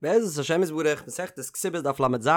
בעזרת השם יתברך, מסכת כתובות דף לז,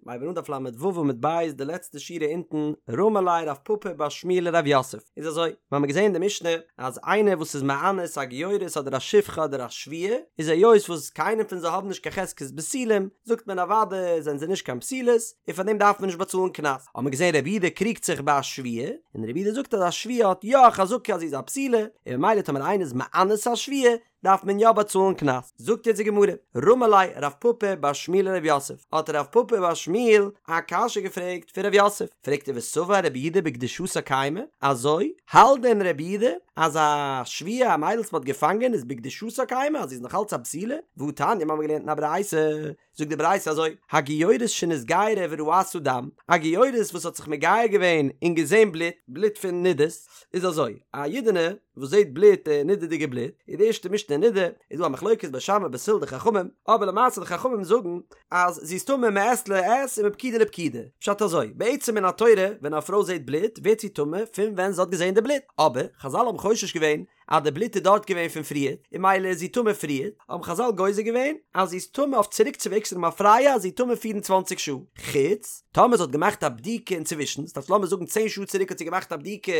מ'הייבן אן דף לו עמוד ב', די לעצטע שורה אונטן, רמי ליה רב פפא בר שמואל לרב יוסף, איז אזוי, מיר האבן געזען אין די משנה אז איינער וואס איז מאנס א גיורת אדער א שפחה אדער א שבויה, איז היות וואס קיינער פון זיי האבן נישט קיין חזקת בתולים, זאגט מען אוודאי זענען זיי נישט קיין בתולות, און פאר דעם דארף מען נישט באצאלן קנס. האבן מיר געזען רבי יהודה קריגט זיך ביי א שבויה, און רבי יהודה זאגט אז א שבויה האט יא א חזקה אז זי איז א בתולה, און ממילא טאמער איינער איז מאנס א שבויה, דארף מען יא באצאלן קנס. זאגט יעצט די גמרא, רמי ליה רב פפא בר שמואל לרב יוסף, האט רב פפא בר שמואל א קשיא געפרעגט פון רב יוסף, פרעגט ער וסבר רבי יהודה בקדושתה קיימא, אזוי האלט דען רבי יהודה אז א שבויה א מיידל וואס מען האט געפאנגען איז בקדושתה קיימא אז זי איז נאך אלץ א בתולה, והתניא מיר האבן געלערנט אין א ברייתא, זאגט די ברייתא אזוי, הגיורת שנתגיירה וראתה דם, א גיורת וואס האט זיך מגייר געווען און געזען בלוט, בלוט פון נדות, איז אזוי, א אידענע וואס זעט בלוט, נדה'דיגע בלוט, איז די ערשטע משנה אין נדה, איז דא א מחלוקת בית שמאי בית הלל די חכמים, אבער למעשה די חכמים זאגן אז זי איז טמא מעת לעת און מפקידה לפקידה, פשט אזוי, בעצם מן התורה ווען א פרוי זעט בלוט ווערט זי טמא פון ווען זי האט געזען די בלוט, אבער חזל האבן חושש געווען אז די בלוט איז דארט געווען פון פריער, און ממילא איז זי טמא פריער, האבן חזל גוזר געווען אז זי איז טמא אויף צוריקצווועגס למפרע אז זי איז טמא פיר און צוואנציג שעה, חוץ טאמער זי האט געמאכט א בדיקה אינצווישן, ס'דארף לאמיר זאגן צען שעה צוריק האט זי געמאכט א בדיקה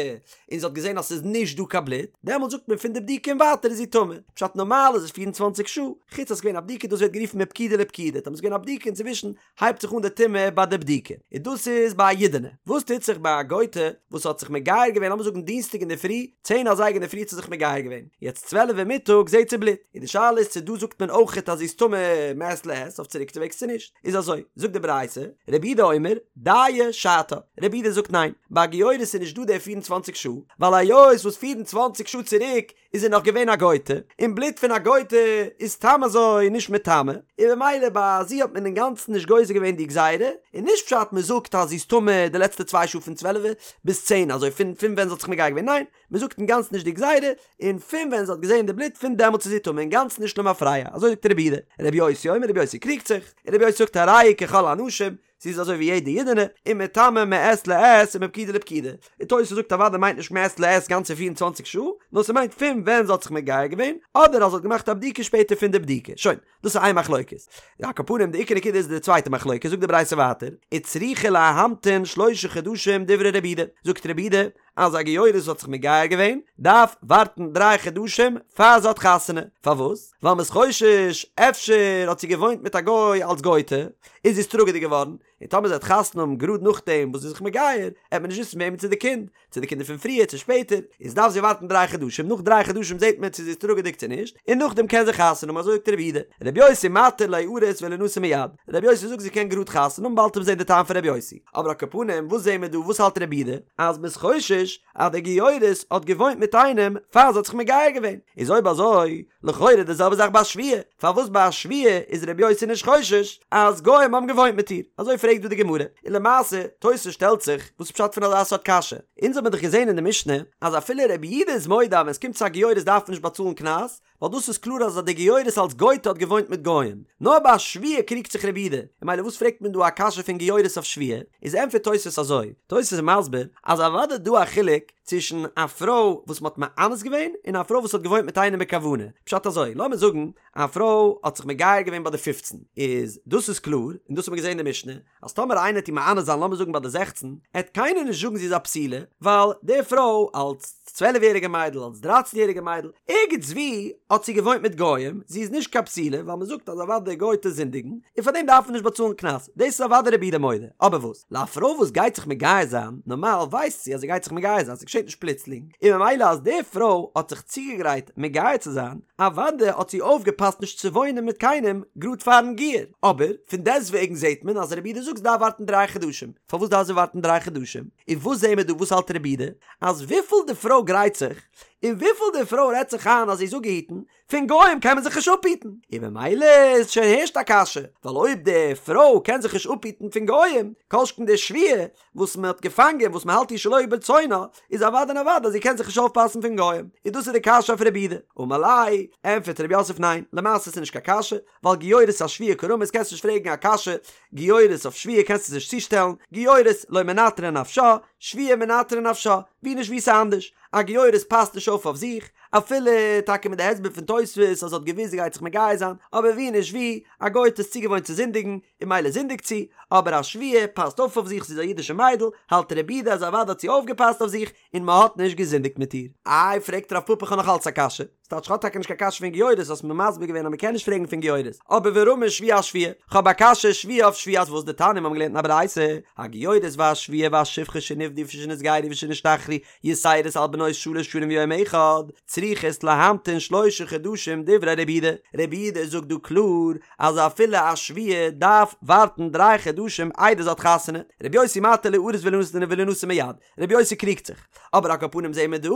און זי האט געזען אז ס'איז נישט דא קיין בלוט, דעמאלט זאגט מען פון די בדיקה און ווייטער איז זי טמא, פשט נארמאל איז עס 24 שעה, חוץ אז ס'איז געווען א בדיקה דאס ווערט גערופן מפקידה לפקידה, טאמער ס'איז געווען א בדיקה אינצווישן הייבט זיך אן די טומאה ביי די בדיקה, און דאס איז ביי א אידענע. וואס טוט זיך ביי א גויטע וואס האט זיך מגייר געווען לאמיר זאגן דינסטאג אינדערפרי, צען אזייגער אינדערפרי האט זי זיך מגייר געווען, יעצט צוועלף מיטאג זעט זי בלוט, און די שאלה איז צו דא זאגט מען אויכעט אז זי איז טמא מעת לעת אויף צוריקצווועגס צו נישט, איז אזוי, זאגט די ברייתא, רבי יהודה אומר, דיה שעתה, רבי יהודה זאגט ניין, ביי א גיורת איז נישט דא די פיר און צוואנציג שעה, ווייל היות וואס פיר און צוואנציג שעה צוריק איז זי נאך געווען א גויטע, און בלוט פון א גויטע איז סתם אזוי נישט מטמא, און במילא ביי זי האט מען אינגאנצן נישט גוזר געווען די גזירה, און נישט פשט מען זאגט אז זי איז טמא די לעצטע צוויי שעה פון צוועלף ביז צען אזוי פון פון ווען זי האט זיך מגייר געווען, ניין, מען זאגט אינגאנצן נישט די גזירה, און פון ווען זי האט געזען די בלוט פון דעמאלטס איז זי טמא אינגאנצן נישט למפרע, אזוי זאגט רבי יהודה, רבי יוסי אומר רבי יוסי קריגט זיך, און רבי יוסי זאגט הרי היא ככל הנשים, זי איז אזוי ווי יעדע אידענע, ומטמאה מעת לעת ומפקידה לפקידה. און תוס' זאגט אוודאי מיינט נישט מעת לעת גאנצע פיר און צוואנציג שעה, נאר ס'מיינט פון ווען זי האט זיך מגייר געווען, אדער אז זי האט געמאכט א בדיקה שפעטער פון די בדיקה. שוין, דאס איז איין מחלוקת. על כל פנים די עיקר נקודה איז די צווייטע מחלוקת, זאגט די ברייתא ווייטער, וצריכה להמתין שלשה חדשים דברי רבי יהודה, זאגט רבי יהודה, אז א גיורת וואס האט זיך מגייר געווען דארף ווארטן דריי חדשים פאר זי האט חתונה, פארוואס? ווייל מ'איז חושש אפשר האט זי געוואוינט מיט א גוי אלס גוי'טע און זי איז טראגעדיג געווארן, און טאמער זי וועט חתונה האבן גראד נאכדעם וואס זי איז זיך מגייר, עט מען נישט וויסן וועמען ס'איז די קינד, צו די קינד איז פון פריער צו שפעטער, איז דארף זי ווארטן דריי חדשים, נאך דריי חדשים זעט מען צו זי איז טראגעדיג צו נישט, און נאכדעם קען זי חתונה האבן, אזוי זאגט רבי יהודה, רבי יוסי מתיר ליארס ולינשא מיד, רבי יוסי זאגט זי קען גראד חתונה האבן באלד וועט מען זען די טעם פון רבי יוסי. אבער על כל פנים וואס זעהן מיר דא וואס האלט רבי יהודה אז מ'איז חושש אז די גיורת האט געוואוינט מיט איינעם פאר זי האט זיך מגייר געווען איז אויב אזוי לכאורה די זעלבע זאך ביי א שבויה פארוואס ביי א שבויה איז רבי יוסי נישט חושש אז גוים האבן געוואוינט מיט איר אזוי פרעגט דא די גמרא און למעשה תוס' שטעלט זיך וואס פשט פון אזא סארט קשיא אונז האבן דאך געזעהן אין די משנה אז אפילו רבי יהודה איז מודה אז ווען עס קומט צו א גיורת דארף מען נישט באצאלן קנס ווייל דאס איז קלאר אז די גיורת אלס גויטע האט געוואוינט מיט גוים. נאר ביי א שבויה קריגט זיך רבי יהודה, און ממילא וואס פרעגט מען דא א קשיא פון גיורת אויף שבויה? איז ענטפערט תוספות אזוי, תוספות איז מסביר אז אוודאי דא א חילוק צווישן א פרוי וואס מ'האט מאנס געווען און א פרוי וואס האט געוואוינט מיט איינעם בכוונה, פשט אזוי, לאמיר זאגן א פרוי האט זיך מגייר געווען ביי די פופצן, איז דאס איז קלאר, און דאס האט מען געזען אין די משנה, אז טאמער איינער עט איר מאנס זיין לאמיר זאגן ביי די זעכצן, עט קיינער נישט זאגן זי איז א בתולה, ווייל די פרוי אלס צוועלף יעריגע מיידל אלס דרייצן יעריגע מיידל, ערגעץ ווי האט זי געוואוינט מיט גוים, זי איז נישט קיין בתולה, ווייל מען זאגט אז אוודאי די גויטע זינדיגן, און פאר דעם דארף מען נישט באצאלן קנס, דאס איז אוודאי רבי יהודה מודה, אבער וואס? לא א פרוי וואס גייט זיך מגייר זיין, נארמאל ווייסט זי אז זי גייט זיך מגייר זיין, ס'געשעט נישט פלוצלינג, און ממילא אז די פרוי האט זיך צוגעגרייט מגייר צו זיין, אוודאי האט זי אויפגעפאסט נישט צו וואוינען מיט קיינעם גראד פארן גיור, אבער פון דעסטוועגן זעט מען אז רבי יהודה זאגט זי דארף ווארטן דריי חדשים, פארוואס דארף זי ווארטן דריי חדשים? און וואס זעהן מיר דא וואס האלט רבי יהודה? אז וויפיל די פרוי גרייט זיך, און וויפיל די פרוי רעדט זיך איין אז זי איז אפגעהיטן, פון גוים קען מען זיך נישט אפהיטן, און ממילא איז שוין הערשט א קשיא, ווייל אויב די פרוי קען זיך נישט אפהיטן פון גוים, כל שכן די שבויה וואס מען האט געפאנגען וואס מען האלט איר שלא ברצונה, איז אוודאי און אוודאי אז זי קען זיך נישט אויפפאסן פון גוים, און דאס איז די קשיא אויף רבי יהודה. אמר ליה, ענטפערט רב יוסף ניין, למעשה איז נישט קיין קשיא, ווייל גיורת אשבויה קרמית קענסט נישט פרעגן א קשיא, גיורת אויף שבויה קענסטו עס נישט צושטעלן, גיורת לא מנטרא נפשה, שבויה מנטרא נפשה, ווי נישט ווי ס'אנדערש, א גיורת פאסט נישט אויף אויף זיך, אפילו טאקע מיט די הסבר פון תוספות אז זי האט געוואוסט זי גייט זיך מגייר זיין, אבער ווי נישט ווי, א גוי'טע איז צוגעוואוינט צו זינדיגן, און ממילא זינדיגט זי, אבער א שבויה פאסט אויף אויף זיך, זי איז א אידישע מיידל, האלט רבי יהודה אז אוודאי האט זי אויפגעפאסט אויף זיך, און מ'האט נישט געזינדיגט מיט איר. איי פרעגט רב פפא כ'האב נאך אלץ א קשיא, ס'טייטש כ'האב טאקע נישט קיין קשיא פון גיורת, האסט מיר מסביר געווען אז מ'קען נישט פרעגן פון גיורת, אבער ורמי שבויה אשבויה, כ'האב א קשיא שבויה אויף שבויה אז וואס דתניא מ'האבן געלערנט אין א ברייתא, הגיורת והשבויה והשפחה שנפדו ושנתגיירו ושנשתחררו יתירות על בנות שלש שנים ויום אחד, צריכות להמתין שלשה חדשים דברי רבי יהודה, רבי יהודה זאגט דא קלאר אז אפילו א שבויה דארף ווארטן דריי חדשים איידער זי האט חתונה, רבי יוסי מתיר ליארס ולינשא מיד, רבי יוסי קריגט זיך, אבער על כל פנים זעהן מיר דא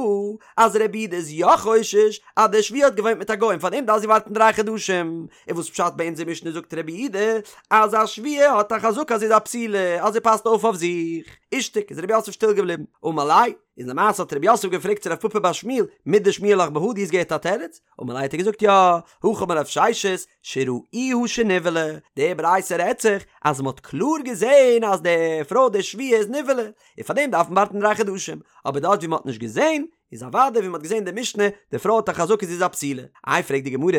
אז רבי יהודה איז יא חושש אז די שבויה האט געוואוינט מיט א גוי און פארדעם דארף זי ווארטן דריי חדשים, און וואס פשט ביי אונזער משנה זאגט רבי יהודה אז א שבויה האט א חזקה אז זי איז א בתולה אז זי פאסט אויף אויף זיך, אישתיק איז רב יוסף שטיל געבליבן, אמר ליה, איז למעשה האט רב יוסף געפרעגט צו רב פפא בר שמואל, מידי שמיע לך בהא דו האסט געהערט א תירוץ? אמר ליה האט ער געזאגט יא, הכי אמר רב ששת, שראוה שנבעלה, די ברייתא רעדט זיך אז מען האט קלאר געזען אז די פרוי די שבויה איז נבעלה, און פאר דעם דארף מען ווארטן דריי חדשים, אבער דארט ווי מען האט נישט געזען, איז אוודאי ווי מען האט געזען די משנה, די פרוי האט א חזקה זי איז א בתולה. איי פרעגט די גמרא,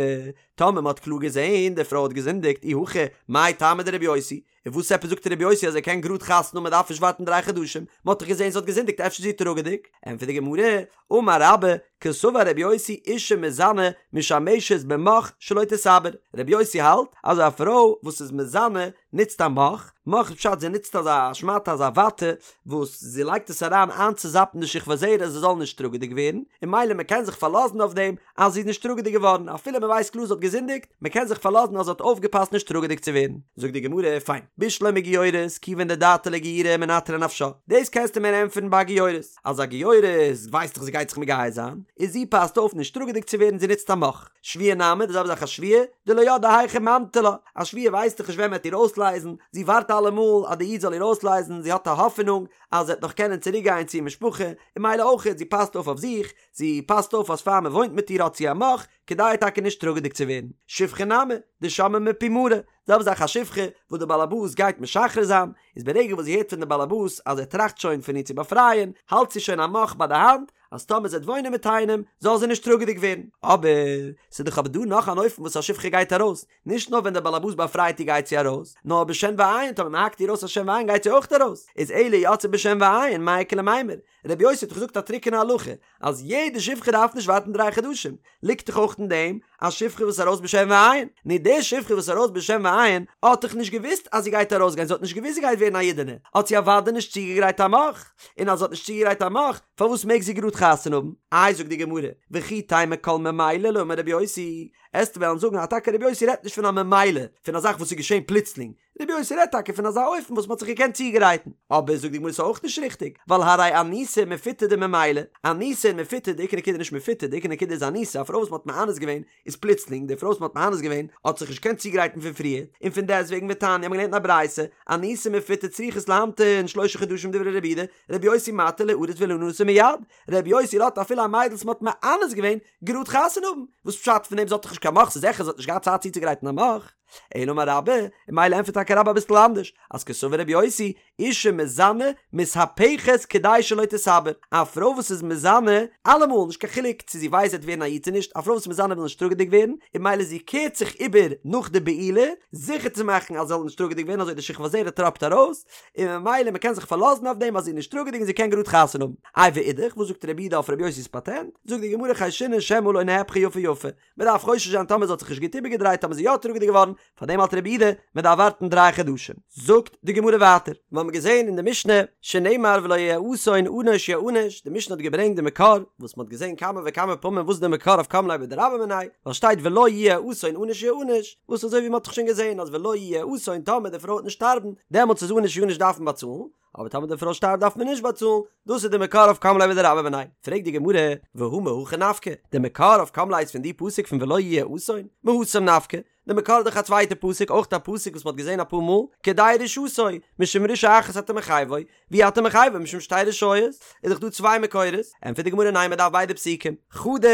טאמער מען האט קלאר געזען די פרוי האט געזינדיגט אי הכי מאי טעמא דרבי יוסי, און וואס עפעס זאגט רבי יוסי אז ער קען גראד חתונה האבן מען דארף נישט ווארטן דריי חדשים, מען האט דאך געזען זי האט געזינדיגט אפשר איז זי טראגעדיג? ענטפערט די גמרא, אמר רבה, קסבר רבי יוסי אישה מזנה משמשת במוך שלא תתעבר, רבי יוסי האלט אז א פרוי וואס איז מזנה נוצט א מוך, מוך איז פשט זי נוצט אזא שמאטע אזא וואטע וואס זי לייגט עס אריין איינצוזאפן די שכבת זרע זי זאל נישט טראגעדיג ווערן, און ממילא מען קען זיך פארלאזן אויף דעם אז זי איז נישט טראגעדיג געווארן אפילו מען ווייסט קלאר זי האט געזינדיגט, מען קען זיך פארלאזן אז זי האט אויפגעפאסט נישט טראגעדיג צו ווערן. זאגט די גמרא, פיין, בשלמא גיורת, כיוון דדעתה לאיגיורי מנטרא נפשה, דאס קענסטו מיר ענטפערן ביי א גיורת, אז א גיורת ווייסט דאך זי גייט זיך מגייר זיין, איז זי פאסט אויף נישט טראגעדיג צו ווערן זי נוצט א מוך. שבויה נמי, די זעלבע זאך א שבויה, דלא ידעה היכי ממטו לה, א שבויה ווייסט דאך נישט ווען מען וועט איר אויסלייזן, זי ווארט אלעמאל אז די איד זאל איר אויסלייזן, זי האט א האפענונג אז זי וועט נאך קענען צוריק גיין צו איר משפחה, און ממילא אויכעט זי פאסט אויף אויף זיך, זי פאסט אויף אז פאר מען וואוינט מיט איר האט זי א מוך, כדי טאקע נישט טראגעדיג צו ווערן. שפחה נמי, דשמעה מפי מרה, זעלבע זאך א שפחה וואס די באלעבאס גייט משחרר זיין, איז ברגע וואס זי הערט פון די באלעבאס אז ער טראכט שוין פון איר צו באפרייען, האלט זי שוין א מוך ביי די האנט, אז טאמער זי וועט וואוינען מיט איינעם, זאל זי נישט טראגעדיג ווערן. אבער, ס'איז דאך אבער דא נאך אן אופן וואס א שפחה גייט ארויס, נישט נאר ווען דער באלעבאס באפרייט איר גייט זי ארויס, נאר בשן ועין, טאמער מ'האקט איר אויס א שן ועין גייט זי אויך ארויס, איז אלא יוצאה בשן ועין, מאי איכא למימר? רבי יוסי האט דאך געזאגט א טרוקענע הלכה אז יעדע שפחה דארף נישט ווארטן דריי חדשים, ליגט דאך אויך אין דעם א שפחה וואס איז ארויס בשן ועין, נו די שפחה וואס איז ארויס בשן ועין האט דאך נישט געוואוסט אז זי גייט ארויסגיין, זי האט נישט געוואוסט זי גייט ווערן א אידענע, האט זי אוודאי נישט צוגעגרייט א מוך, און אז זי האט נישט צוגעגרייט א מוך, פארוואס מעג זי גראד חתונה האבן? איי זאגט די גמרא, וכי תימא כל ממילא לא אמר רבי יוסי, עסטו וועלן זאגן אז טאקע רבי יוסי רעדט נישט פון א ממילא, פון א זאך וואס איז געשען פלוצלינג, רבי יוסי רעדט טאקע פון אזא אופן וואס מ'האט זיך געקענט צוגרייטן, אבער זאגט די גמרא ס'איז אויך נישט ריכטיג, ווייל הרי אנוסה ומפותה דממילא, אנוסה און מפותה, די עיקר נקודה איז נישט מפותה, די עיקר נקודה איז אנוסה, א פרוי וואס מ'האט מאנס געווען איז פלוצלינג, די פרוי וואס מ'האט מאנס געווען האט זיך נישט געקענט צוגרייטן פון פריער, און פון דעסטוועגן ותניא האבן געלערנט אין א ברייתא, אנוסה ומפותה צריכות להמתין שלושה חדשים דברי רבי יהודה, רבי יוסי מתיר ליארס ולינשא מיד, רבי יוסי לאזט אפילו א מיידל וואס מ'האט מאנס געווען גראד חתונה האבן, וואס פשט פון דעם זי האט דאך נישט קיין מוך, ס'איז זיכער זי האט נישט געהאט צייט צוצוגרייטן א מוך. אלא אמר רבה, און ממילא ענטפערט טאקע רבה אביסל אנדערש, אז קסבר רבי יוסי, אישה מזנה מתהפכת כדי שלא תתעבר, א פרוי וואס איז מזנה, אלעמאל, נישט קיין חילוק צו זי ווייסט זי וועט ווערן א איד צו נישט, א פרוי וואס איז מזנה וויל נישט טראגעדיג ווערן, און ממילא זי קערט זיך איבער נאך די בעילה, זיכער צו מאכן אז זי זאל נישט טראגעדיג ווערן אזוי די שכבת זרע טראפט ארויס, און ממילא מען קען זיך פארלאזן אויף דעם אז זי איז נישט טראגעדיג און זי קען גראד חתונה האבן. איי ואידך, וואס זאגט רבי יהודה אויף רבי יוסי'ס פאטענט? זאגט די גמרא חיישינן שמא לא נהפכה יפה יפה, מען דארף חושש זיין טאמער זי האט זיך נישט גוט איבערגעדרייט טאמער איז זי יא טראגעדיג געווארן, פאר דעם האלט רבי יהודה מען דארף ווארטן דריי חדשים. זאגט די גמרא ווייטער, מיר האבן געזען אין די משנה, שנאמר ולא יהיה אסון ענוש יענש, די משנה האט געברענגט די מקור, וואס מען האט געזען כמה וכמה פעמים וואס איז די מקור אויף קם ליה בדרבה מיניה, ווייל שטייט ולא יהיה אסון ענוש יענש, וואס אזוי ווי מען האט דאך שוין געזען אז ולא יהיה אסון טאמער די פרוי וועט נישט שטארבן, דעמאלטס איז ענוש יענש דארף מען באצאלן, אבער טאמער די פרוי שטארבט דארף מען נישט באצאלן, דאס איז די מקור אויף קם ליה בדרבה מיניה. פרעגט די גמרא, והא מהכא נפקא, די מקור אויף קם ליה איז פון די פסוק פון ולא יהיה אסון, מהתם נפקא, די מקור איז דאך א צווייטע פסוק, אויך א פסוק וואס מען האט געזען אפאר מאל, כדי רשעתו, משום רשעה אחת אתה מחייבו, ואי אתה מחייבו משום שתי רשעיות, איז דאך דא צוויי מקורות, ענטפערט די גמרא ניין מען דארף ביידע פסוקים, חדא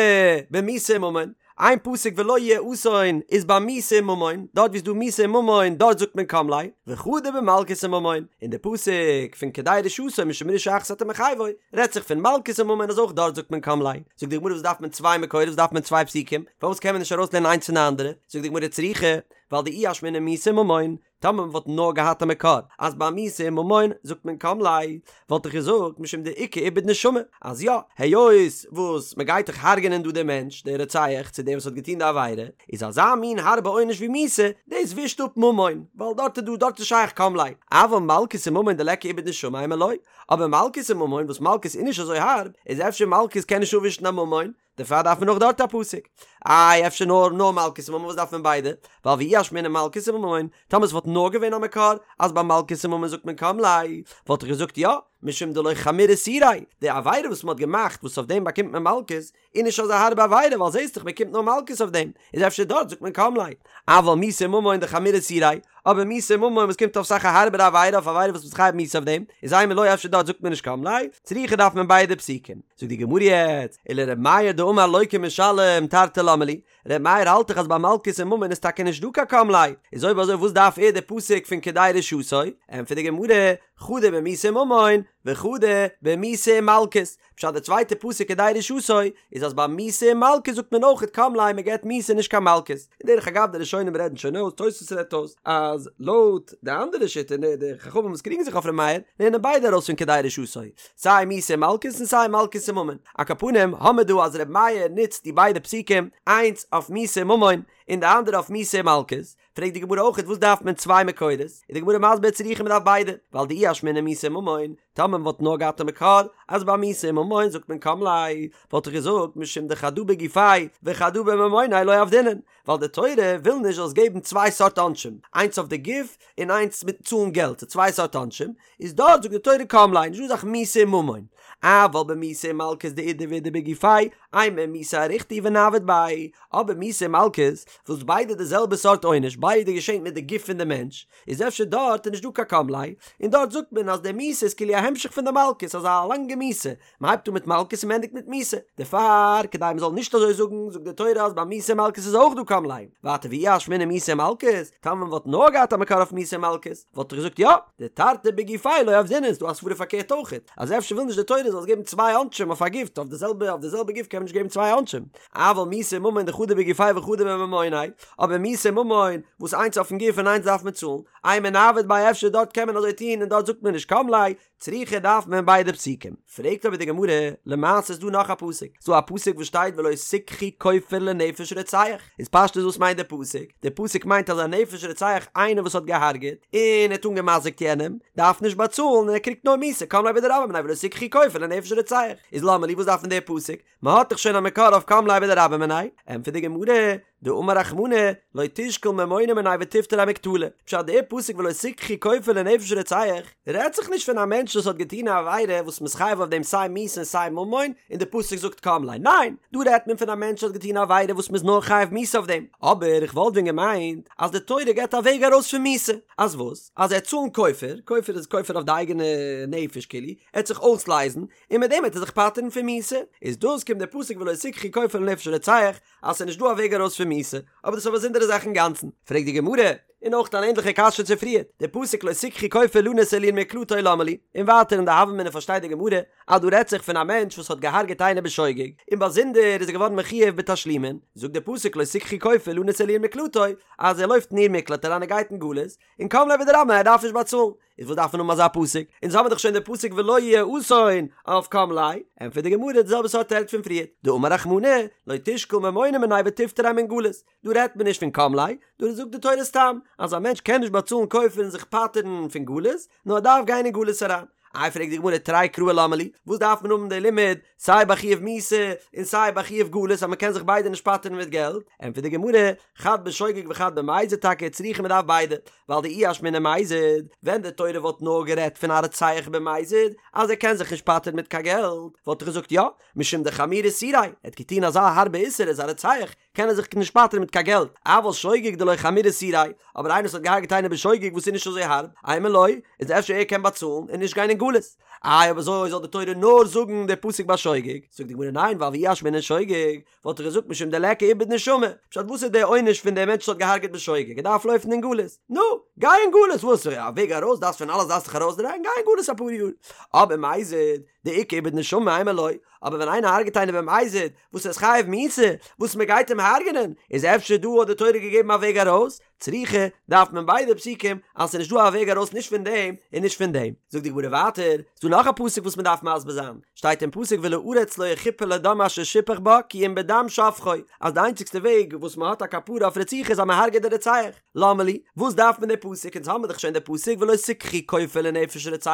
במיתה וממון, איין פסוק ולא יהיה אסון איז ביי מיתה וממון, דארט ווי ס'איז דא מיתה וממון דארט זאגט מען קם ליה, וחדא במלקות וממון, און די פסוק פון כדי רשעתו משום רשעה אחת אתה מחייבו רעדט זיך פון מלקות וממון אז אויך דארט זאגט מען קם ליה. זאגט די גמרא וואס דארף מען צוויי מקורות וואס דארף מען צוויי פסוקים, פארוואס קען מען נישט ארויסלערנען איינס פון די אנדערע, זאגט די גמרא צריכא, ווייל דאי אשמעינן מיתה וממון, טאמער מ'וואלט נאר געהאט א מקור אז ביי מיתה און ממון זאגט מען קם ליה, וואלט איך געזאגט משום דאיכא איבוד נשמה, אז יא, היות וואס מ'גייט דאך הרג'ענען דא דעם מענטש, דער רוצח, צו דער וואס האט געטון די עבירה, איז אזא מין הארבע עונש ווי מיתה, דאס ווישט אפ ממון, ווייל דארט איז דא, דארט איז שייך קם ליה, אבל מלקות וממון דליכא איבוד נשמה אימא לא, אבער מלקות און ממון וואס מלקות איז נישט אזוי הארב, איז אפשר מלקות קען נישט אפווישן א ממון, דערפאר דארף מען אויך דארט א פסוק. איי אפשר נאר נאר מלקות וממון וואס דארף מען ביידע? ווייל ואי אשמעינן מלקות וממון, טאמער עס וואלט נאר געווען א מקור אז ביי מלקות וממון זאגט מען קם ליה, וואלט איך געזאגט יא, משום דלא חמיר איסוריה, די עבירה וואס מען האט געמאכט וואס אויף דעם באקומט מען מלקות, איז נישט אזא הארבע עבירה ווייל זעסט דאך מען קומט נאר מלקות אויף דעם, איז אפשר דארט זאגט מען קם ליה. אבל מיתה וממון דחמיר איסוריה, אבער מיתה וממון וואס קומט אויף אסאך א הארבערע עבירה אויף עבירה וואס מ'איז חייב מיתה אויף דעם, איז אימא לא אפשר דארט זאגט מען נישט קם ליה, צריכא דארף מען ביידע פסוקים. זאגט די גמרא יעצט, ולר' מאיר דאמר לוקה ומשלם תרתי למה לי, ר' מאיר האלט דאך אז ביי מלקות און ממון איז טאקע נישט דא קיין קם ליה, איז אויב אזוי וואס דארף ער די פסוק פון כדי רשעתו? ענטפערט די גמרא, חדא במיתה וממון, וחדא במיתה ומלקות, פשט די צווייטע פסוק כדי רשעתו איז אז ביי מיתה און מלקות זאגט מען אויכעט קם ליה מען געבט מיתה נישט קיין מלקות, און דרך אגב די ראשונים רעדן שוין אויס, תוספות רעדט אויס, אז לויט די אנדערע שיטה און די חכמים וואס קריגן זיך אויף ר' מאיר לערנען ביידע ארויס פון כדי רשעתו, סיי מיתה און מלקות און סיי מלקות און ממון, על כל פנים האמיר דא אז ר' מאיר נוצט די ביידע פסוקים איינס אויף מיתה און ממון און די אנדערע אויף מיתה און מלקות, פרעגט די גמרא אויכעט וואס דארף מען צוויי מקורות, איז די גמרא מסביר צריכא מ'דארף ביידע, ווייל דאי אשמעינן מיתה וממון, טאמער מ'וואלט נאר געהאט א מקור אז ביי מיתה און ממון זאגט מען קם ליה, וואלט איך געזאגט משום דחדא בגופיה וחדא בממוניה לא עבדינן, ווייל די תורה וויל נישט זאלסט געבן צוויי סארט עונשים, איינס אויף די גוף און איינס מיט צאלן געלט, ס'איז צוויי סארט עונשים, איז דארט זאגט די תורה קם ליה, נישטא אזא זאך מיתה און ממון, אבל במיתה ומלקות דאידי ואידי בגופיה, אימא מיתה אריכתא ונעביד ביה, אבער מיתה און מלקות, וואס ביידע די זעלבע סארט עונש, ביידע געשענט מיט די גוף פון די מענטש, איז אפשר דארט איז נישט דא קיין קם ליה, און דארט זאגט מען אז די מיתה איז כאילו א המשך פון די מלקות, אזא לאנגע מיתה, מען הייבט אן מיט מלקות און מען ענדיגט מיט מיתה, דערפאר כדי מען זאל נישט אזוי זאגן, זאגט די תורה אז ביי מיתה און מלקות איז אויך דא קם ליה, ווייטער ואי אשמעינן מיתה ומלקות, טאמער מען וואלט נאר געהאט א מקור אויף מיתה און מלקות, וואלט איך געזאגט יא, דתרתי בגופיה לא עבדינן, איז דא א סברא פארקערט אויכעט, אז אפשר וויל נישט די תורה זאלסט געבן צוויי עונשים אויף א גוף, אויף די זעלבע אויף די זעלבע גוף קען מען נישט געבן צוויי עונשים, אבל מיתה וממון דחדא בגופיה וחדא בממוניה, אבער מיתה און ממון, וואס איינס אויפן גוף און איינס דארף מען צאלן, אימא נעביד ביה אפשר דארט קען מען אזוי טון און דארט זאגט מען נישט קם ליה, צריכא דארף מען ביידע פסוקים. פרעגט אבער די גמרא, למעשה איז דא נאך א פסוק, ס'דא א פסוק וואס שטייט ולא תקחו כופר לנפש רוצח, איז פשטות וואס מיינט די פסוק? די פסוק מיינט אז א נפש רוצח איינער וואס האט געהארגעט און ער האט אנגעמזיקט יענעם, דארף נישט באצאלן און ער קריגט נאר מיתה, קם ליה בדרבה מיניה ולא תקחו כופר לנפש רוצח, איז למה לי וואס דארף מען די פסוק? מען האט דאך שוין א מקור אויף קם ליה בדרבה מיניה, ענטפערט די גמרא, דאמר רחמנא, לא תשקול ממונא מיניה ותפטריה מקטלא, פשט דער פסוק ולא תקחו כופר לנפש רוצח, רעדט זיך נישט פון א מענטש וואס האט געטון א עבירה וואס מ'איז חייב אויף דעם סיי מיתה און סיי ממון, און די פסוק זאגט קם ליה, ניין, דא רעדט מען פון א מענטש וואס האט געטון א עבירה וואס מ'איז נאר חייב מיתה אויף דעם, אבער איך וואלט ווען געמיינט אז די תורה געבט א וועג ארויס פון מיתה, אז וואס? אז ער וועט צאלן כופר, כופר איז כופר אויף די אייגענע נפש כאילו, ער וועט זיך אויסלייזן, און מיט דעם וועט ער זיך פטר'ן פון מיתה, איז דאס קומט דער פסוק ולא תקחו כופר לנפש רוצח, אז ס'איז נישט דא א וועג ארויס פון מיתה, אבער דאס איז א באזונדערע זאך אינגאנצן. פרעגט די גמרא, און אויך אן ענדליכע קשיא צו פריער, דער פסוק לא תקחו כופר לנוס אל עיר מקלטו למה לי, און ווייטער אין די הוה אמינא פארשטייט די גמרא אז דא רעדט זיך פון א מענטש וואס האט געהארגעט איינער בשוגג, און באזונדער איז ער געווארן מחויב בתשלומין, זאגט דער פסוק לא תקחו כופר לנוס אל עיר מקלטו, אז ער לויפט אין עיר מקלט אריין ער גייט אין גלות, און קם ליה בדרבה מיניה ער דארף נישט באצאלן. איז וואס דארף מען האבן אזא פסוק? אונז האבן דאך שוין די פסוק ולא יהיה אסון אויף קם ליה, ענטפערט די גמרא די זעלבע סארט תירוץ פון פריער, דאמר רחמנא, לא תשקול ממונא מיניה ותפטריה מן גלות, דא רעדט מען נישט פון קם ליה, דא זאגט די תורה סתם אז א מענטש קען נישט באצאלן כופר און זיך פטר'ן פון גלות, נאר ער דארף גיין אין גלות אריין. איי פרעגט די גמרא תרי קראי למה לי, וואס דארף מען האבן די לימוד סיי ביי חיוב מיתה און סיי ביי חיוב גלות אז מען קען זיך ביידע נישט פטר'ן מיט געלט, ענטפערט די גמרא, חד בשוגג וחד במזיד טאקע צריכא מען דארף ביידע, ווייל דאי אשמעינן מזיד, ווען די תורה וואלט נאר גערעדט פון א רוצח במזיד אז ער קען זיך נישט פטר'ן מיט קיין געלט, וואלט איך געזאגט יא, משום דחמיר איסוריה, ער האט געטון אזא הארבע איסור ער איז א רוצח, קען ער זיך נישט פטר'ן מיט קיין געלט, אבל שוגג דלא חמיר איסוריה, אבער איינער וואס האט געהארגעט איינעם בשוגג וואס איז נישט אזוי הארב, אימא לא, איז אפשר ער קען באצאלן און נישט גיין אין גלות. איי אויב אזוי זאל די תורה נאר זאגן די פסוק ביי שוגג? זאגט די גמרא ניין ווייל ואי אשמעינן שוגג וואלט איך געזאגט משום דליכא איבוד נשמה, פשט וואס איז די עונש פון די מענטש וואס האט געהארגעט בשוגג ער דארף לויפן אין גלות, נו, גיי אין גלות וואס א וועג ארויס דארפסט פון אלעס דארפסט דיך ארויסדרייען גיי אין גלות אפאר יאר, אבער מזיד דאיכא איבוד נשמה אימא לא, אבער ווען איינער הרגעט איינעם במזיד וואס ער איז חייב מיתה וואס מען גייט אים הרגענען איז אפשר דא האט די תורה געגעבן א וועג ארויס, צריכא, דארף מען ביידע פסוקים אז ס'איז נישט דא א וועג ארויס נישט פון דעם און נישט פון דעם. זאגט די גמרא ווייטער, ס'דא נאך א פסוק וואס מ'דארף מסביר זיין, שטייט אין פסוק ולארץ לא יכפר לדם אשר שפך בה כי אם בדם שופכו, אז די איינציגסטע וועג וואס מ'האט א כפרה אויף רציחה איז אז מ'הרג'עט די רוצח, למה לי, וואס דארף מען די פסוק, אונז האמיר דאך שוין די פסוק ולא תקחו כופר לנפש רוצח,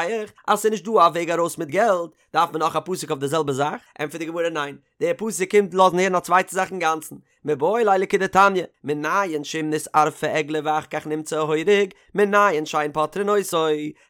אז ס'איז נישט דא א וועג ארויס מיט געלט, דארף מען נאך א פסוק אויף די זעלבע זאך? ענטפערט די גמרא ניין, דער פסוק קומט לאזן הערן א צווייטע זאך אינגאנצן, מיבעי ליה לכדתניא, מנין שאם נתערפה עגלה ואחר כך נמצא ההורג, מנין שאין פוטרין אותו.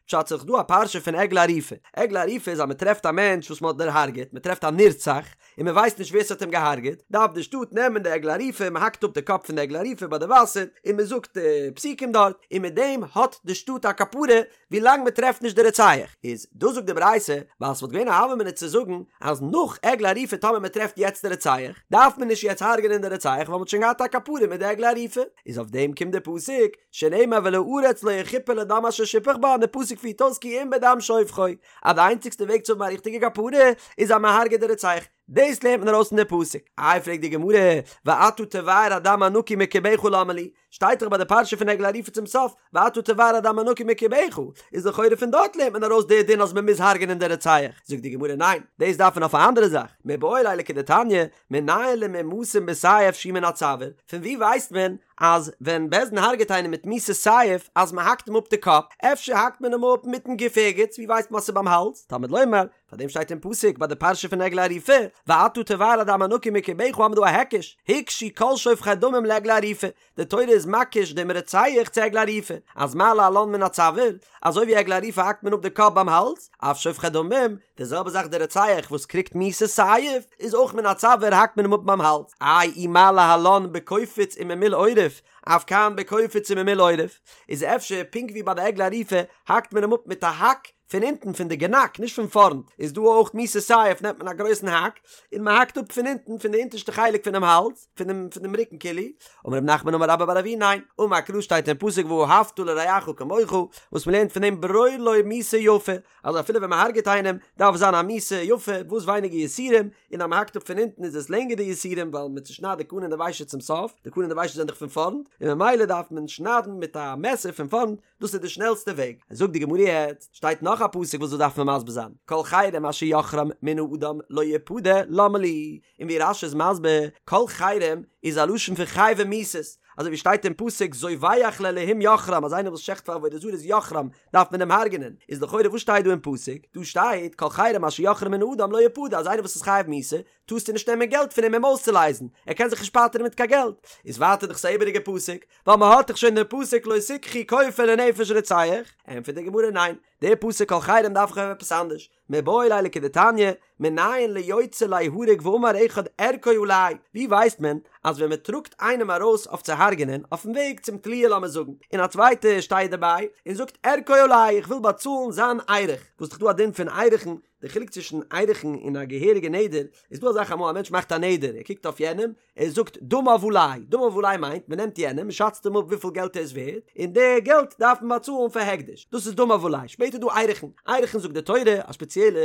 פשט ס'איז דאך דא א פרשה פון עגלה ערופה. עגלה ערופה איז אז מ'טרעפט א מענטש וואס מ'האט דערהארגעט, מ'טרעפט א נרצח, און מ'ווייסט נישט ווער ס'האט אים געהארגעט, דארף די שטאט נעמען די עגלה ערופה, מ'האקט אפ די קאפ פון די עגלה ערופה ביי די וואסער, און מ'זאגט די פסוקים דארט, און מיט דעם האט די שטאט א כפרה, ווילאנג מען טרעפט נישט די רוצח, איז דאס זאגט די ברייתא, ווייל ס'וואלט געווען א הוה אמינא צו זאגן אז נאך עגלה ערופה טאמער מען טרעפט יעצט די רוצח, דארף מען נישט יעצט הרג'נען די רוצח ווייל מ'האט שוין געהאט א כפרה מיט די עגלה ערופה, איז אויף דעם קומט די פסוק, שנאמר ולארץ לא יכפר לדם אשר שפך בה און די פסוק פירט אויס כי אם בדם שופכו, אז די איינציגסטע וועג צו האבן א ריכטיגע כפרה איז אז מען הרג'עט די רוצח, דאס לערנט מען ארויס פון די פסוק. איי פרעגט די גמרא, ואתה תבער הדם הנקי מקרבך למה לי, שטייט דאך ביי די פרשה פון עגלה ערופה צום סוף, ואתה תבער הדם הנקי מקרבך, איז לכאורה פון דארט לערנט מען ארויס די דין אז מען מוז הרג'נען די רוצח, זאגט די גמרא ניין, דאס דארף מען אויף א אנדערע זאך, מיבעי ליה לכדתניא, מנין למומתים בסייף שהוא מן הצוואר, פון ווי ווייסט מען אז ווען בית דין הרג'עט איינעם מיט מיתת סייף אז מען האקט אים אפ די קאפ, אפשר האקט מען אים אפ מיטן גוף ערגעץ, ווי ווייסט מען אז ס'איז ביים האלז, תלמוד לומר, פאר דעם שטייט אין פסוק ביי די פרשה פון עגלה ערופה, ואתה תבער הדם הנקי מקרבך האבן מיר דא א היקש, הוקשו כל שופכי דמים לעגלה ערופה, די תורה איז מקיש דעם רוצח צו עגלה ערופה, אז מה להלן מן הצוואר, אזוי ווי עגלה ערופה האקט מען אפ די קאפ ביים האלז, אף שופכי דמים, די זעלבע זאך די רוצח וואס קריגט מיתת סייף, איז אויך מן הצוואר האקט מען אים אפ ביים האלז, איי אי מה להלן בקופיץ וממול עורף, אף כאן בקופיץ וממול עורף, איז אפשר פונקט ווי ביי די עגלה ערופה האקט מען אים אפ מיט א האק, פון אונטן פון די גענאק נישט פון פארנט איז דא אויך מיתת סייף נעמט מען א גרויסן האק און מען האקט אפ פון אונטן פון די אונטערשטע חלק פונעם האלז פונעם פונעם רוקן כאילו אמר רב נחמן אמר רבה בר אבוה ניין אמר קרא שטייט אין פסוק ואהבת לרעך כמוך וואס מען לערנט פון דעם ברור לו מיתה יפה אז אפילו ווען מען הרג'עט איינעם דארף זיין א מיתה יפה וואס ווייניגער יסורים און אז מען האקט אפ פון אונטן איז עס לענגער די יסורים ווייל מען צושניידט די קנה און די ושט צום סוף די קנה און די ושט זענען דאך פון פארנט און ממילא דארף מען שניידן מיט א מעסער פון פארנט דאס איז די שנעלסטע וועג. זאגט די גמרא יעצט, שטייט נאך א פסוק וואס דאס דארף מען מסביר זיין, כל חרם אשר יחרם מן האדם לא יפדה למה לי, און ווי רש"י איז מסביר, כל חרם איז א לשון פון חייבי מיתות, אזוי ווי שטייט אין פסוק זובח לאלהים יחרם אז איינער וואס שעכט פאר עבודה זרה איז יחרם דארף מען אים הרג'נען, איז לכאורה וואס שטייט דא אין פסוק? דא שטייט כל חרם אשר יחרם מן האדם לא יפדה אז איינער וואס איז חייב מיתה טארסטו נישט נעמען געלט פון אים אים אויסצולייזן, ער קען זיך נישט פטר'ן מיט קיין געלט, איז ווייטער דאך ס'איז א איבעריגע פסוק, ווייל מען האט דאך שוין דעם פסוק לא תקחו כופר לנפש רוצח, ענטפערט די גמרא ניין, דער פסוק כל חרם דארף איך האבן עפעס אנדערש, מיבעי ליה לכדתניא, מנין ליוצא ליהרג ואמר אחד ערכו עלי, ווי ווייסט מען אז ווען מען טראגט איינעם ארויס אויף צו הרג'נען אויפן וועג צום תליה לאמיר זאגן, און א צווייטער שטייט דערביי און זאגט ערכו עלי איך וויל באצאלן זיין ערך, וואס דאך דא א דין פון ערכין, די חילוק צווישן ערכין און א געהעריגע נדר, איז דא א זאך אמאל א מענטש מאכט א נדר, ער קוקט אויף יענעם, ער זאגט דמיו עלי, דמיו עלי מיינט מען נעמט יענעם, מען שאצט אים אפ וויפיל געלט ער איז ווערד, און די געלט דארף מען באצאלן פאר הקדש, דאס איז דמיו עלי, שפעטער איז דא ערכין, ערכין זאגט די תורה, א ספעציעלע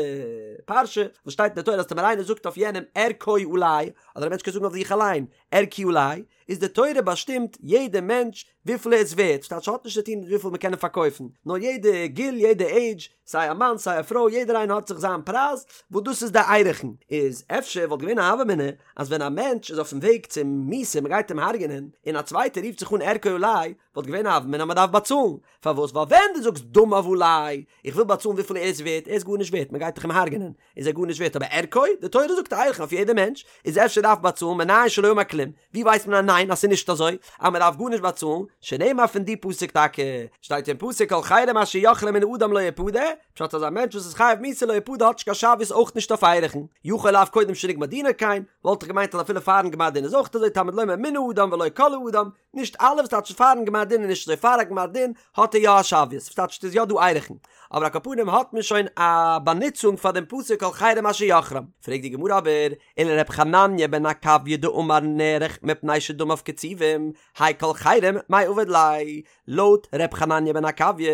פרשה, וואס שטייט אין די תורה אז טאמער איינער זאגט אויף יענעם ערכו עלי, אדער א מענטש קען זאגן אויף זיך אליין, ערכי עלי, איז די תורה באשטימט יעדע מענטש וויפיל ער איז ווערט, ס'טייטש ס'האט נישט צו טון מיט וויפיל מ'קען אים פארקויפן, נאר יעדע גיל יעדע עידזש, סיי א מאן סיי א פרוי יעדער איינער האט זיך זיין פרייז, וואס דאס איז די ערכין, איז אפשר וואלט געווען א הוה אמינא אז ווען א מענטש איז אויפן וועג צום מיתה מ'גייט אים הרג'נען, און א צווייטער רופט זיך אן ערכו עלי, וואלט געווען א הוה אמינא אז מען דארף באצאלן, פארוואס? ווייל ווען דו זאגסט דמיו עלי, איך וויל באצאלן וויפיל ער איז ווערט, ער איז גארנישט ווערט, מען גייט דאך אים הרג'נען, איז ער גארנישט ווערט, אבער ערכו, די תורה זאגט ערכין אויף יעדע מענטש, איז אפשר דארף באצאלן, מנין שלא אמר כלום, ווי ווייסט מען אז ניין אז ס'איז נישט אזוי, אז מען דארף גארנישט באצאלן, שנאמר פון די פסוק טאקע, שטייט אין פסוק כל חרם אשר יחרם מן האדם לא יפדה, פשט אז א מענטש וואס איז חייב מיתה לא יפדה האט נישט קיין שוויות אויך נישט אויף ערכין, יכול אף קודם שנגמר דינו כן, וואלט איך געמיינט אז אפילו פארן גמר דין איז אויך אזוי תלמוד לומר מן האדם ולא כל האדם, נישט אלע וואס טייטש פארן גמר דין איז נישט אזוי פאר א גמר דין האט ער יא א שוויות וואס טייטש ס'איז יא דא ערכין אבער על כל פנים האט מען שוין א באנוצונג פאר דעם פסוק כל חרם אשר יחרם פרעגט די גמרא אבער ולר' חנניה בן עקביא דאמר נערך מפני שדמיו קצובים האי כל חרם מאי עביד ליה לויט ר' חנניה בן עקביא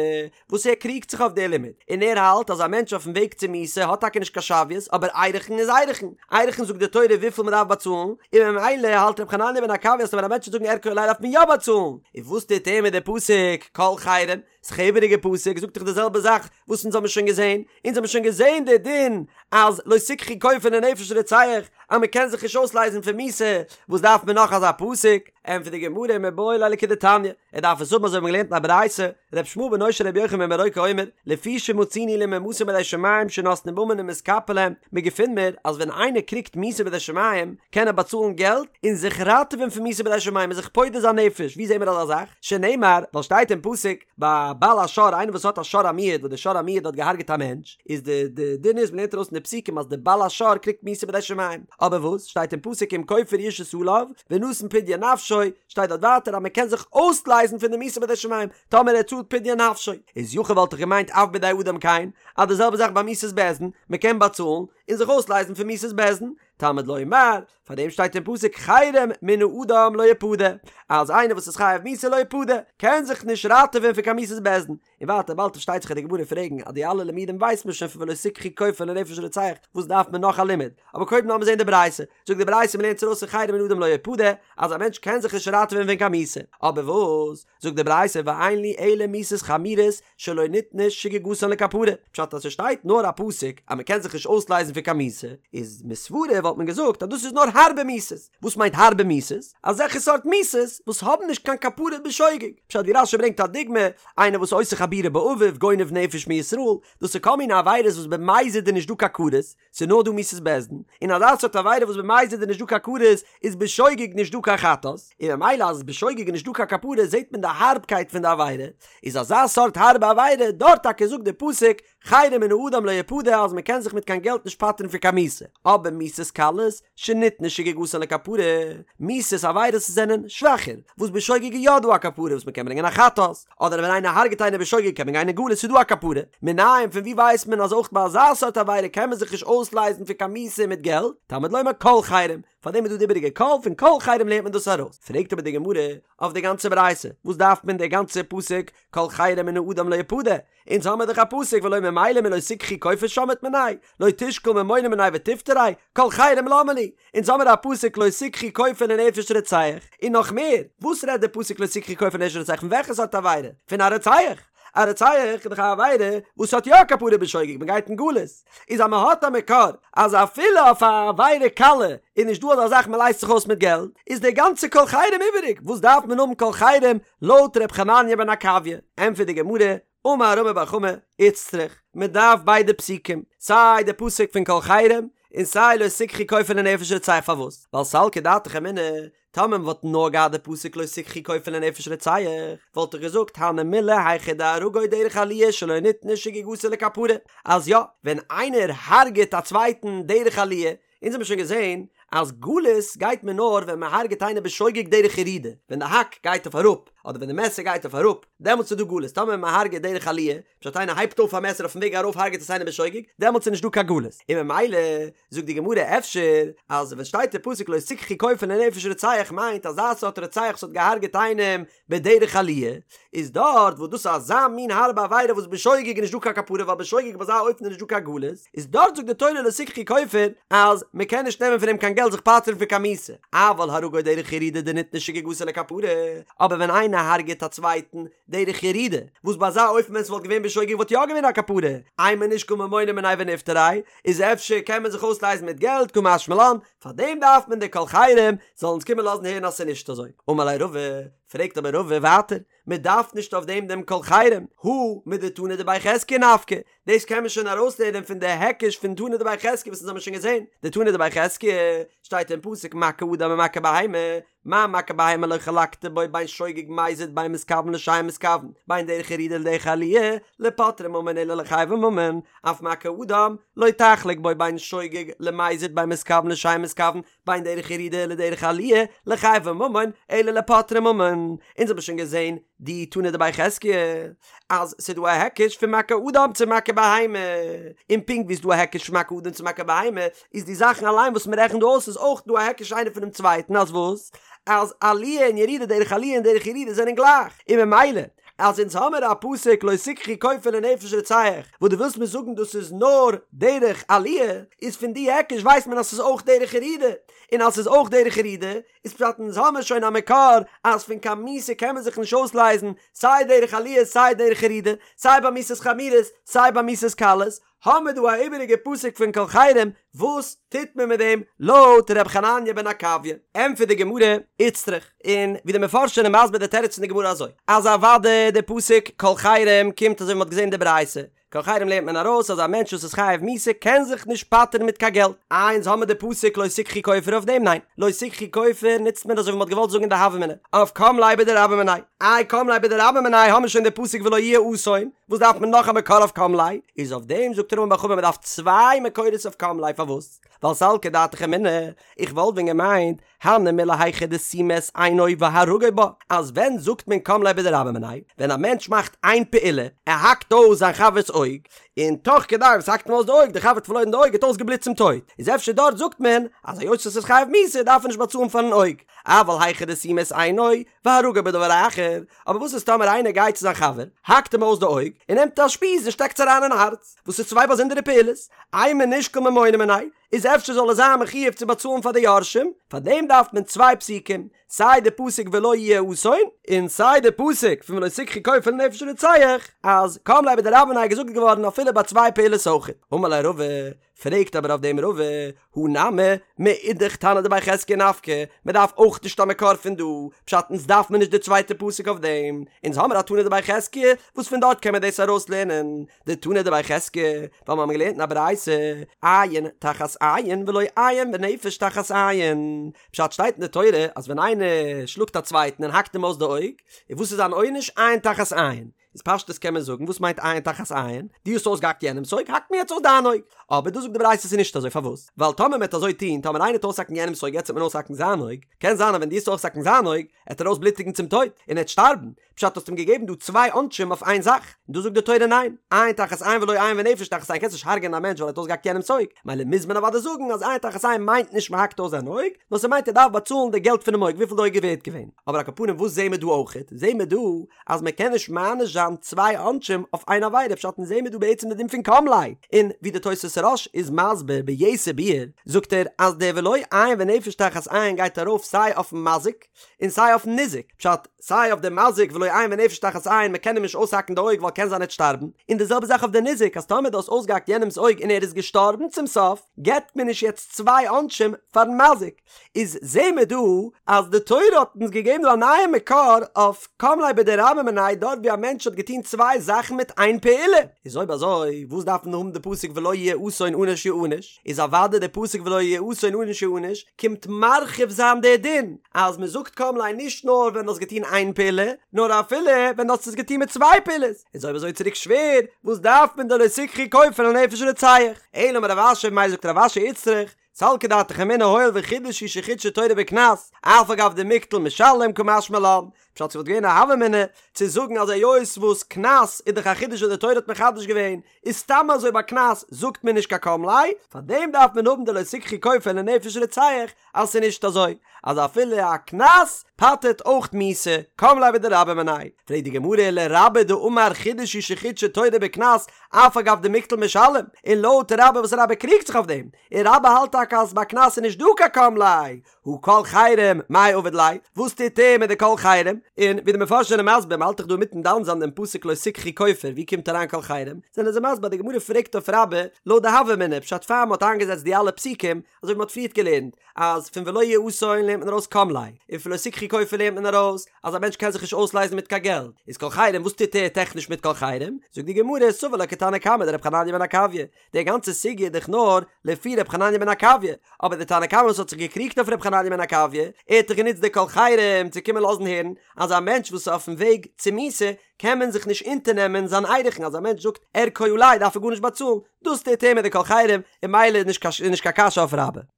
וואס ער קריגט זיך אויף די לימוד, און ער האלט אז א מענטש אויפן וועג צו מיתה האט טאקע נישט קיין שוויות, אבער ערכין איז ערכין, ערכין זאגט די תורה וויפיל מען דארף באצאלן, און ממילא האלט ר' חנניה בן עקביא אז ווען א מענטש וועט זאגן ערכו עלי דארף מען יא באצאלן, און וואס טוט ער מיט די פסוק כל חרם? ס'איז א איבעריגע פסוק, זאגט דאך די זעלבע זאך וואס אונז האבן שוין געזען, אונז האבן שוין געזען די דין אז לא תקחו כופר לנפש רוצח, אז מען קען זיך נישט אויסלייזן פון מיתה, וואס דארף מען נאך אזא פסוק? ענטפערט די גמרא מיבעי ליה לכדתניא, ער דארף עס האבן אזוי ווי מ'האט געלערנט אין א ברייתא, ר' ישמעאל בנו של ר' יוחנן בן ברוקה אומר, לפי שמצינו למומתים בידי שמים שנותנים ממון ומתכפר להם, מ'געפינט מיר אז ווען איינער קריגט מיתה בידי שמים קען ער באצאלן געלט און זיך ראטעווען פון מיתה בידי שמים און זיך פודה זיין נפש, ווי זעהן מיר אזא זאך? שנאמר, ווייל שטייט אין פסוק, ביי בעל השור איינער וואס האט א שור המועד וואס די שור המועד האט געהארגעט א מענטש, איז די די דין איז מ'לערנט ארויס אין די פסוקים אז די בעל השור קריגט מיתה בידי שמים, אבער וואס שטייט אין פסוק אם כופר יושת עליו ונתן פדיון נפשו, שטייט דארט ווייטער אז מ'קען זיך אויסלייזן פון די מיתה בידי שמים טאמער ער צאלט פדיון נפשו, איז יכול וואלט איך געמיינט אף בידי אדם כן, אז די זעלבע זאך ביי מיתת בית דין, מ'קען באצאלן און זיך אויסלייזן פון מיתת בית דין, תלמוד לומר, פאר דעם שטייט אין פסוק חרם מן האדם לא יפדה, אז איינער וואס איז חייב מיתה לא יפדה, קען זיך נישט ראטעווען פון קיין מיתת בית דין. און ווייטער באלד פארשטייט זיך אז די גמרא פרעגן אז די אלע לימודים ווייסט מען שוין פון ולא תקחו כופר לנפש רוצח, וואס דארף מען נאך א לימוד? אבער קודם לאמיר זען די ברייתא, זאגט די ברייתא מ'לערנט ארויס פון חרם מן האדם לא יפדה, אז א מענטש קען זיך נישט ראטעווען פון קיין מיתה, אבער וואס? זאגט די ברייתא ואין לי אלא מיתות חמורות שלא ניתנה שגגתן לכפרה, פשט אז ס'שטייט נאר א פסוק אז מ'קען זיך נישט אויסלייזן פון קיין מיתה, איז מסברא וואלט מען געזאגט אז דאס איז נאר הארבע מיתות, וואס מיינט הארבע מיתות? אזעלכע סארט מיתות וואס האבן נישט קיין כפרה בשוגג, פשט ווי רש"י ברענגט א דוגמא, איינער וואס עושה חבורה באביו, גונב נפש מישראל, דאס איז כל מיני עבירות וואס במזיד איז נישט דא קיין כרת, ס'איז נאר דא מיתת בית דין, און אזא סארט עבירה וואס במזיד איז נישט דא קיין כרת, איז בשוגג נישט דא קיין חטאת, און ממילא אז בשוגג איז נישט דא קיין כפרה זעט מען די הארבקייט פון די עבירה, איז אזא סארט הארבע עבירה, דארט טאקע זאגט די פסוק, חרם מן האדם לא יפדה אז מ'קען זיך מיט קיין געלט נישט פטר'ן פון קיין מיתה, אבער מיתות קלות, שניתנה שגגתן לכפרה, מיתות עבירות זענען שוואכער, וואס בשוגג איז יא דא א כפרה וואס מ'קען ברענגען א חטאת, אדער ווען איינער הרג'ט איינער בשוגג קען מען גיין אין גלות ס'איז דא א כפרה, מנין פון ווי ווייסט מען אז אויך ביי אזא סארט עבירה קען מען זיך נישט אויסלייזן פון קיין מיתה מיט געלט, תלמוד לומר כל חרם, פארדעם איז דא די איבעריגע כל, פון כל חרם לערנט מען דאס ארויס, פרעגט אבער די גמרא אויף די גאנצע ברייתא, וואס דארף מען די גאנצע פסוק כל חרם מן האדם לא יפדה, אונז האמער דאך א פסוק ולא ממילא מלא תקחו כופר שמעת מיניה, לא תשקול ממונא מיניה ותפטריה, כל חרם למה לי, אונז האמער א פסוק לא תקחו כופר לנפש רוצח, און נאך מער, וואס רעדט די פסוק לא תקחו כופר לנפש רוצח פון וועלכע סארט עבירה? פון א רוצח! א רוצח איז דאך א עבירה וואס האט יא כפרה בשוגג, מען גייט אין גלות, איז אז מען האט א מקור אז אפילו אויף א עבירה קלה איז נישט דא אזא זאך מען לייזט זיך אויס מיט געלט, איז די גאנצע כל חרם איבעריג, וואס דארף מען האבן כל חרם לויט ר' חנניה בן עקביא? ענטפערט די גמרא, אמר רמי בר חמא, איצטריך, מען דארף ביידע פסוקים, סיי די פסוק פון כל חרם, און סיי לא תקחו כופר לנפש רוצח פארוואס? ווייל סלקא דעתך אמינא, טאמער מען וואלט נאר געהאט די פסוק לא תקחו כופר לנפש רוצח, וואלט איך געזאגט הני מילי היכא דהרגו דרך עליה שלא ניתנה שגגתו לכפרה, אז יא, ווען איינער הרג'עט א צווייטן דרך עליה, אונז האבן שוין געזען אז גלות גייט מען נאר ווען מען הרג'עט איינער בשוגג דרך ירידה, ווען די האק גייט אויף אראפ, אדער ווען די מעסער גייט אויף אראפ, דעמאלטס איז דא גלות, טאמער מען הרג'עט דרך עליה, פשט איינער הייבט אויף א מעסער אויפן וועג ארויף הרג'עט עס איינער בשוגג, דעמאלטס איז נישט דא קיין גלות, און ממילא זאגט די גמרא אפשר אז ווען שטייט אין פסוק לא תקחו כופר לנפש רוצח מיינט אזא סארט רוצח וואס האט געהארגעט איינעם בדרך עליה, איז דארט וואס דאס איז אזא מין הארבע עבירה וואס בשוגג איז נישט דא קיין כפרה ווייל בשוגג ביי אזא אופן איז נישט דא קיין גלות, איז דארט זאגט די תורה לא תקחו כופר אז מען קען נישט נעמען פון אים קיין געלט זיך פטר'ן פון קיין מיתה, אבל הרגו דרך ירידה דניתנה שגגתו לכפרה, אבער ווען איינער הרג'עט א צווייטן דרך ירידה, וואס ביי אזא אופן ווען ס'וואלט געווען בשוגג וואלט יא געווען א כפרה, אימא נשקול ממונא מיניה ונפטריה, איז אפשר קען מען זיך אויסלייזן מיט געלט קא משמע לן, פאר דעם דארף מען די כל חרם זאל אונז קומען לאזן הערן אז ס'איז נישט אזוי. אמר ליה רבא, פרעגט אבער רבא ווייטער, מען דארף נישט אויף דעם דעם כל חרם, הא מדתנא דבי חזקיה נפקא, דאס קען מען שוין ארויסלערנען פון די היקש פון תנא דבי חזקיה וואס אונז האבן שוין געזען, דתנא דבי חזקיה שטייט אין פסוק מכה אדם ומכה בהמה, מה מכה בהמה לא חלקת בו בין שוגג מזיד בין מתכוון לשאין מתכוון, בין דרך ירידה לדרך עליה, לפוטרי ממון אלא לחייבי ממון, אף מכה אדם לא תחלוק בו בין שוגג למזיד בין מתכוון לשאין מתכוון, בין דרך ירידה לדרך עליה, לחייבי ממון, אלא לפוטרי ממון. אונז האבן שוין געזען די תנא דבי חזקיה אז ס'איז דא א היקש פון מכה אדם צו מכה בהמה, און פונקט ווי ס'איז דא א היקש פון מכה אדם צו מכה בהמה, איז די זאכן אליין וואס מ'רעכנט דא אויס איז אויך דא א היקש איינער פונעם צווייטן אז וואס? אז עליה און ירידה דרך עליה און דרך ירידה זענען גלייך, און ממילא אז אונז האמיר א פסוק לא תקחו כופר לנפש רוצח, וואס דו ווילסט מיר זאגן דאס איז נאר דרך עליה, איז פון די היקש ווייסט מען אז ס'איז אויך דרך ירידה, און אז ס'איז אויך דרך ירידה, איז פשט אונז האמיר שוין א מקור אז פון קיין מיתה קען מען זיך נישט אויסלייזן, סיי דרך עליה סיי דרך ירידה, סיי ביי מיתות חמורות סיי ביי מיתות קלות, האמיר דא א איבעריגע פסוק פון כל חרם, וואס טוט מען מיט דעם לויט ר' חנניה בן עקביה? ענטפערט די גמרא, איצטריך, און ווי די מפרשים זענען מסביר די תירוץ פון די גמרא אזוי, אז אוודאי די פסוק כל חרם קומט אזוי ווי מ'האט געזען אין די ברייתא, כל חרם לערנט מען ארויס אז א מענטש וואס איז חייב מיתה קען זיך נישט פטר'ן מיט קיין געלט. איי אונז האמיר די פסוק לא תקחו כופר אויף דעם? ניין, לא תקחו כופר נוצט מען אזוי ווי מ'האט געוואלט זאגן אין די הוה אמינא אויף קם ליה בדרבה מיניה. איי קם ליה בדרבה מיניה האמיר שוין די פסוק ולא יהיה אסון, וואס דארף מען נאך א מקור אויף קם ליה? איז אויף דעם זאגט רמי בר חמא מ'דארף צוויי מקורות אויף קם ליה פארוואס? ווייל סלקא דעתך אמינא, איך וואלט ווען געמיינט הני מילי היכא דסימא את עינו והרגו בה, אז ווען זאגט מען קם ליה בדרבה מיניה? ווען א מענטש מאכט איין פעולה, ער האקט אויס זיין חבר'ס אויג, און תוך כדי וואס האקט אים אויס די אויג, די חבר האט פארלוירן די אויג, האט אויסגעבלוט צום טויט, איז אפשר דארט זאגט מען אז היות עס איז חייב מיתה דארף ער נישט באצאלן פארן אויג, אבל היכא דסימא את עינו והרגו בדבר אחר, אבער וואס איז טאמער איינער גייט צו זיין חבר, האקט אים אויס די אויג, און נעמט א שפיז און שטעקט עס אריין אין הארץ, וואס איז צוויי באזונדערע פעולות, אימא נישקול ממונא מיניה, איז אפשר זאל ער זיין מחויב צו באצאלן פאר די יורשים, פאר דעם דארף מען צוויי פסוקים, סיי די פסוק ולא יהיה אסון, און סיי די פסוק פון ולא תקחו כופר לנפש רוצח, אז קם ליה בדרבה מיניה איז געזאגט געווארן אפילו ביי צוויי פעולות אויכעט. אמר ליה רבא, פרעגט אבער אויף דעם רבא, הא נמי, מאידך תנא דבי חזקיה נפקא, מען דארף אויך נישט א מקור פון דא, פשט אונז דארף מען נישט די צווייטע פסוק אויף דעם, אונז האמער א תנא דבי חזקיה וואס פון דארט קען מען דאס ארויס לערנען, דתנא דבי חזקיה, ווייל מיר האבן געלערנט אין א ברייתא, עין תחת עין ולא עין ונפש תחת עין, פשט שטייט אין די תורה אז ווען איינער שלאגט א צווייטן און האקט אים אויס די אויג, און וואס איז זיין עונש? עין תחת עין. איז פשטות קען מען זאגן וואס מיינט עין תחת עין? דו האסט אויסגעהאקט יענעמס אויג האקט מען יעצט אויס דיין אויג. אבער דא זאגט די ברייתא ס'איז נישט אזוי פארוואס? ווייל טאמער מ'עט אזוי טון טאמער איינער עט אויסהאקן יענעמס אויג יעצט עט מען אויסהאקן זיין אויג, קען זיין אז ווען דו עסט אויסהאקן זיין אויג עט ער אויסבלוטיגן צום טויט און ער עט שטארבן, פשט האסט אים געגעבן דא צוויי עונשים אויף איין זאך, און דא זאגט די תורה ניין, עין תחת עין ולא עין ונפש תחת עין קענסט נישט הרג'ענען א מענטש ווייל ער האט אויסגעהאקט יענעמס אויג, מילא מוז מען אוודאי זאגן אז עין תחת עין מיינט נישט מ'האקט אויס זיין אויג, נאר ס'מיינט ער דארף באצאלן די געלט פונעם אויג וויפיל די אויג איז ווערט געווען. אבער על כל פנים וואס זעהן מיר דא אויכעט? זעהן מיר דא אז מען קען נישט מעניש זיין צוויי עונשים אויף איין עבירה, פשט אונז זעהן מיר דא בעצם די דין פון קם ליה, און ווי די תוס' הרא"ש איז מסביר ביתר ביאור, זאגט ער אז דער ולא עין ונפש תחת עין גייט ארויף סיי אויפן מזיק און סיי אויפן ניזק, פשט, סיי אויף די מזיק ולא עין ונפש תחת עין מען קען אים נישט אויסהאקן די אויג ווייל קען זיין ער וועט שטארבן, און די זעלבע זאך אויף די ניזק אז טאמער דו האסט אויסגעהאקט יענעמס אויג און ער איז געשטארבן צום סוף, געבט מען נישט יעצט צוויי עונשים פארן מזיק. איז זעהן מיר דא אז די תורה האט אונז געגעבן דא א נייע מקור אויף קם ליה בדרבה מיניה דארט ווי א מענטש האט געטון צוויי זאכן מיט איין פעולה, איז אויב אזוי וואס דארף מען האבן די פסוק ולא יהיה אסון ענוש יענש, איז אוודאי די פסוק ולא יהיה אסון ענוש יענש קומט מרחיב זיין די דין אז מען זאגט קם ליה נישט נאר ווען דו האסט געטון איין פעולה נאר אפילו ווען דו האסט עס געטון מיט צוויי פעולות, איז אויב אזוי צוריק שווער וואס דארף מען די לא תקחו כופר לנפש רוצח, אלא אמר רב אשי ממילא זאגט רב אשי איצטריך סלקא דעתך אמינא הואיל וחידוש הוא שחידשה תורה בקנס, אף על גב דמיקטל משלם קא משמע לן, פשט ס'וואלט געווען א הוה אמינא צו זאגן אז היות וואס קנס איז דאך א חידוש וואס די תורה האט מחדש געווען, איז סתם אזוי ביי קנס זאגט מען נישט קיין קם ליה, פארדעם דארף מען האבן די לא תקחו כופר לנפש רוצח אז ס'איז נישט אזוי אז אפילו א קנס פטר'ט אויך מיתה, קם ליה בדרבה מיניה. פרעגט די גמרא ולרבה דאמר חידוש הוא שחידשה תורה בקנס אף על גב דמיקטל משלם, און לויט רבה וואס רבה קריגט זיך אויף דעם, און רבה האלט טאקע אז ביי קנס איז נישט דא קיין קם ליה, הא כל חרם מאי עביד ליה, וואס טוט ער מיט די כל חרם? און ווי די מפרשים זענען מסביר, מ'האלט דאך דא אינמיטן דן זיין דעם פסוק לא תקחו כופר, ווי קומט אריין כל חרם? זענען זיי מסביר אז די גמרא פרעגט אויף רבה לויט די הוה אמינא, פשט פאר מ'האט איינגעזעצט די אלע פסוקים, אזוי ווי מ'האט פריערט געלערנט, אז פון ולא יהיה אסון לערנט מען ארויס קם ליה, און פון לא תקחו כופר לערנט מען ארויס אז א מענטש קען זיך נישט אויסלייזן מיט קיין געלט, איז כל חרם וואס טוט ער טעכניש מיט כל חרם? זאגט די גמרא, סבר לה כתנא קמא דרב חנניה בן עקביא, די גאנצע סוגיא איז דאך נאר לפי ר' חנניה בן עקביא, אבער די תנא קמא וואס האט זיך געקריגט אויף ר' חנניה בן עקביא, ער האט דאך גענוצט די כל חרם צו קומען לאזן הערן אז א מענטש וואס איז אויפן וועג צו מיתה קען מען זיך נישט אונטערנעמען זיין ערכין, אז א מענטש זאגט ערכו עלי דארף ער גארנישט באצאלן, דאס טוט ער מיט די כל חרם, און ממילא איז נישט קיין קשיא אויף רבה.